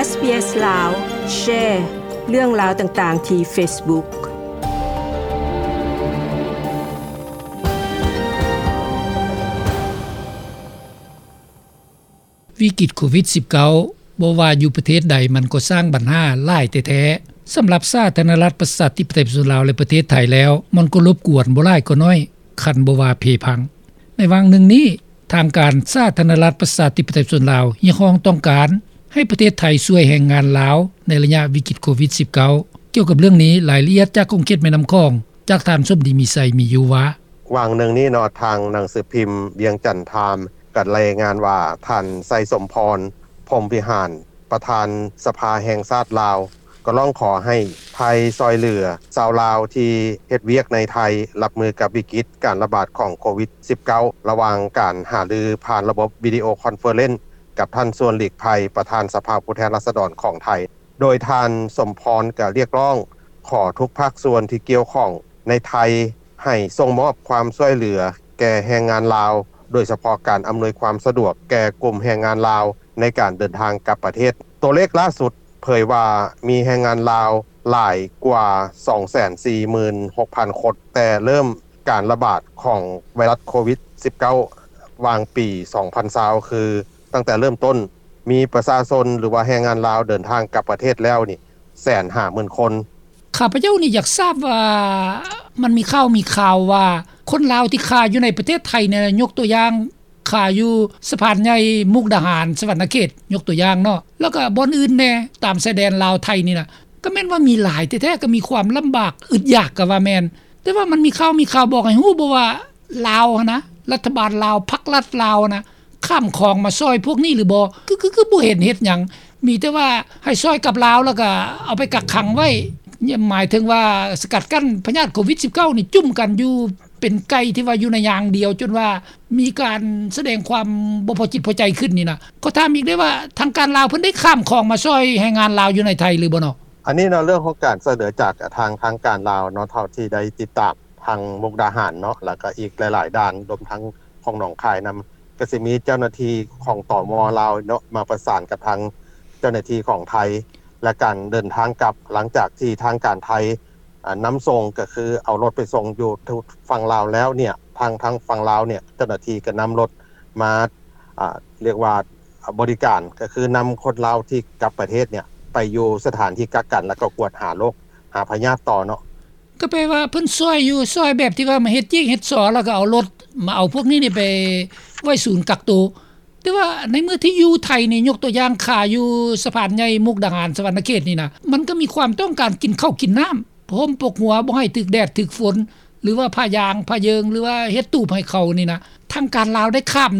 ເອສບີເອສ ລາວ ແຊເລື່ອງລາວຕ່າງໆທີ່ເຟສບຸກ. ວິກິດໂຄວິດສິບເກົ້າ ບໍ່ວ່າຢູ່ປະເທດໃດ ມັນກໍສ້າງບັນຫາຫຼາຍແທ້ໆ ສຳລັບສາທາລະນະລັດ ປະຊາທິປະໄຕ ປະຊາຊົນລາວ ແລະ ປະເທດໄທແລ້ວ ມັນກໍລົບກວນບໍ່ຫຼາຍກໍໜ້ອຍ ຄັນບໍ່ວ່າເພພັງ. ໃນຫວ່າງໜຶ່ງນີ້ ທາງການສາທາລະນະລັດ ປະຊາທິປະໄຕ ປະຊາຊົນລາວ ຮຽກຮ້ອງຕ້ອງການໃຫ້ປະເທດໄທຊ່ວຍແຮງງານລາວ ໃນໄລຍະວິກິດໂຄວິດສິບເກົ້າ. ກ່ຽວກັບເລື່ອງນີ້ ລາຍລະອຽດຈາກຂົງເຂດແມ່ນ້ຳຂອງ ຈາກທ່ານ ສົມດີ ມີໄຊ ມີຢູ່ວ່າ: ຫວ່າງໜຶ່ງນີ້ເນາະ ທາງໜັງສືພິມວຽງຈັນທາມ ກໍລາຍງານວ່າ ທ່ານ ໄຊສົມພອນ ພົມວິຫານ ປະທານສະພາແຫ່ງຊາດລາວ ກໍຮ້ອງຂໍໃຫ້ໄທຊ່ອຍເຫຼືອຊາວລາວທີ່ເຮັດວຽກໃນໄທ ຮັບມືກັບວິກິດການລະບາດຂອງໂຄວິດສິບເກົ້າ ລະຫວ່າງການຫາລືຜ່ານລະບົບວິດີໂອຄອນເຟີເຣັນ ກັບທ່ານ ຊວນ ຫຼີກໄພ ປະທານສະພາຜູ້ແທນລາຊະດອນຂອງໄທ. ໂດຍທ່ານ ສົມພອນ ກໍຮຽກຮ້ອງຂໍທຸກພາກສ່ວນທີ່ກ່ຽວຂ້ອງໃນໄທ ໃຫ້ສົ່ງມອບຄວາມຊ່ວຍເຫຼືອແກ່ແຮງງານລາວ, ໂດຍສະເພາະການອຳນວຍຄວາມສະດວກແກ່ກຸ່ມແຮງງານລາວໃນການເດີນທາງກັບປະເທດ. ຕົວເລກລ່າສຸດເຜີຍວ່າມີແຮງງານລາວຫຼາຍກວ່າ ສອງແສນສີ່ໝື່ນຫົກພັນຄົນ ແຕ່ເລີ່ມການລະບາດຂອງໄວຣັສໂຄວິດສິບເກົ້າ ຫວ່າງປີສອງພັນຊາວ ຄືຕັ້ງແຕ່ເລີ່ມຕົ້ນ ມີປະຊາຊົນ ຫຼືວ່າແຮງງານລາວເດີນທາງກັບປະເທດແລ້ວນີ້ ແສນຫ້າໝື່ນຄົນ. ຂ້າພະເຈົ້ານີ້ຢາກຊາບວ່າ ມັນມີຂ່າວມີຄາວວ່າ ຄົນລາວທີ່ຄາຢູ່ໃນປະເທດໄທນີ້ ຍົກຕົວຢ່າງ ຄາຢູ່ສະພານໃຫຍ່ ມຸກດາຫານ ສະຫວັນນະເຂດ ຍົກຕົວຢ່າງເນາະ ແລ້ວກໍບ່ອນອື່ນແດ່ ຕາມຊາຍແດນລາວໄທນີ້ນະ ກໍແມ່ນວ່າມີຫຼາຍແທ້ໆ ກໍມີຄວາມລຳບາກອຶດຢາກກໍວ່າແມ່ນ. ແຕ່ວ່າມັນມີຂ່າວມີຄາວບອກໃຫ້ຮູ້ບໍ່ວ່າ ລາວຫັ້ນນະ ລັດຖະບານລາວ ພັກລັດລາວຫັ້ນນະ ຂ້າມຂອງມາຊ່ອຍພວກນີ້ຫຼືບໍ່? ຄື ຄື ຄືບໍ່ເຫັນເຮັດຫຍັງ ມີແຕ່ວ່າໃຫ້ຊ່ອຍກັບລາວ ແລ້ວກໍເອົາໄປກັກຂັງໄວ້ ໝາຍເຖິງວ່າສະກັດກັ້ນພະຍາດໂຄວິດສິບເກົ້ານີ້ ຈຸ້ມກັນຢູ່ເປັນໄກ່ທີ່ວ່າຢູ່ໃນຢາງດຽວ ຈົນວ່າມີການສະແດງຄວາມບໍ່ພໍຈິດພໍໃຈຂຶ້ນນີ້ນະ. ຂໍຖາມອີກໄດ້ວ່າ ທາງການລາວເພິ່ນໄດ້ຂ້າມຂອງມາຊ່ອຍແຮງງານລາວຢູ່ໃນໄທຫຼືບໍ່ເນາະ? ອັນນີ້ເນາະ ເລື່ອງຂອງການຊ່ວຍເຫຼືອຈາກທາງ ທາງການລາວເນາະ ເທົ່າທີ່ໄດ້ຕິດຕາມ ທາງມຸກດາຫານເນາະ ແລ້ວກໍອີກຫຼາຍໆດ່ານ ລວມທັງຂອງໜອງຄາຍນຳ ກໍຊິມີເຈົ້າໜ້າທີ່ຂອງ ຕມ ລາວເນາະ ມາປະສານກັບທາງເຈົ້າໜ້າທີ່ຂອງໄທ ແລະ ການເດີນທາງກັບ ຫຼັງຈາກທີ່ທາງການໄທ ອາ ນຳສົ່ງ ກໍຄືເອົາລົດໄປສົ່ງຢູ່ຝັ່ງລາວແລ້ວເນຍ ທາງ ທາງຝັ່ງລາວເນຍ ເຈົ້າໜ້າທີ່ກໍນຳລົດມາ ອາ ຮຽກວ່າ ອາ ບໍລິການ ກໍຄືນຳຄົນລາວທີ່ກັບປະເທດເນຍ ໄປຢູ່ສະຖານທີ່ກັກກັນ ແລ້ວກໍກວດຫາໂລກ ຫາພະຍາດຕໍ່ເນາະ. ກໍແປວ່າເພິ່ນຊ່ອຍຢູ່ ຊ່ອຍແບບທີ່ວ່າມາເຮັດຈີກເຮັດຊໍ ແລ້ວກໍເອົາລົດມາເອົາພວກນີ້ນີ້ໄປໄວ້ສູນກັກໂຕ. ແຕ່ວ່າໃນເມື່ອທີ່ຢູ່ໄທນີ້ ຍົກຕົວຢ່າງຄາຢູ່ສະພານໃຫຍ່ມຸກດາຫານ ສະຫວັນນະເຂດນີ້ນະ ມັນກໍມີຄວາມຕ້ອງການກິນເຂົ້າກິນນ້ຳ ຜ້າຫົ່ມປົກຫົວ ບໍ່ໃຫ້ຖືກແດດຖືກຝົນ ຫຼືວ່າຜ້າຢາງຜ້າເຢິງ ຫຼືວ່າເຮັດຕູບໃຫ້ເຂົານີ້ນະ ທາງການລາວໄດ້ຂ້າມ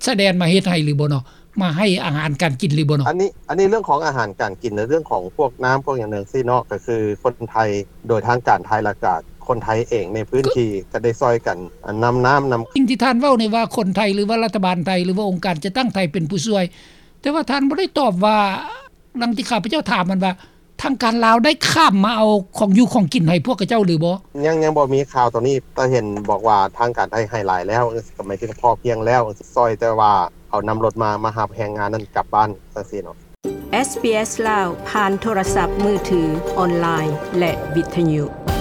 ຊາຍແດນມາເຮັດໃຫ້ຫຼືບໍ່ເນາະ? ມາໃຫ້ອາຫານການກິນຫຼືບໍ່ເນາະ? ອັນນີ້ ອັນນີ້ເລື່ອງຂອງອາຫານການກິນ ແລະ ເລື່ອງຂອງພວກນ້ຳພວກຫຍັງຈັ່ງຊີ້ເນາະ ກໍຄືຄົນໄທ ໂດຍທາງການໄທ ແລ້ວກະຄົນໄທເອງໃນພື້ນທີ່ກໍໄດ້ຊ່ອຍກັນ ອັນ ນຳນ້ຳນຳ ສິ່ງທີ່ທ່ານເວົ້ານີ້ວ່າຄົນໄທ ຫຼືວ່າລັດຖະບານໄທ ຫຼືວ່າອົງການຈັດຕັ້ງໄທເປັນຜູ້ຊ່ວຍ ແຕ່ວ່າທ່ານບໍ່ໄດ້ຕອບວ່າ ດັ່ງທີ່ຂ້າພະເຈົ້າຖາມຫັ້ນວ່າ ທາງການລາວໄດ້ຂ້າມມາເອົາຂອງຢູ່ຂອງກິນໃຫ້ພວກຂະເຈົ້າຫຼືບໍ່? ຍັງ ຍັງບໍ່ມີຂ່າວຕົວນີ້ ແຕ່ເຫັນບອກວ່າທາງການໄທໃຫ້ຫຼາຍແລ້ວ ກໍໝາຍເຖິງພໍພຽງແລ້ວ ຊ່ອຍແຕ່ວ່າເອົານຳລົດມາ ມາຮັບແຮງງານນັ້ນກັບບ້ານ ຈັ່ງຊີ້ເນາະ. ເອສບີເອສ ລາວ ຜ່ານໂທລະສັບມືຖື, ອອນລາຍ ແລະ ວິທະຍຸ.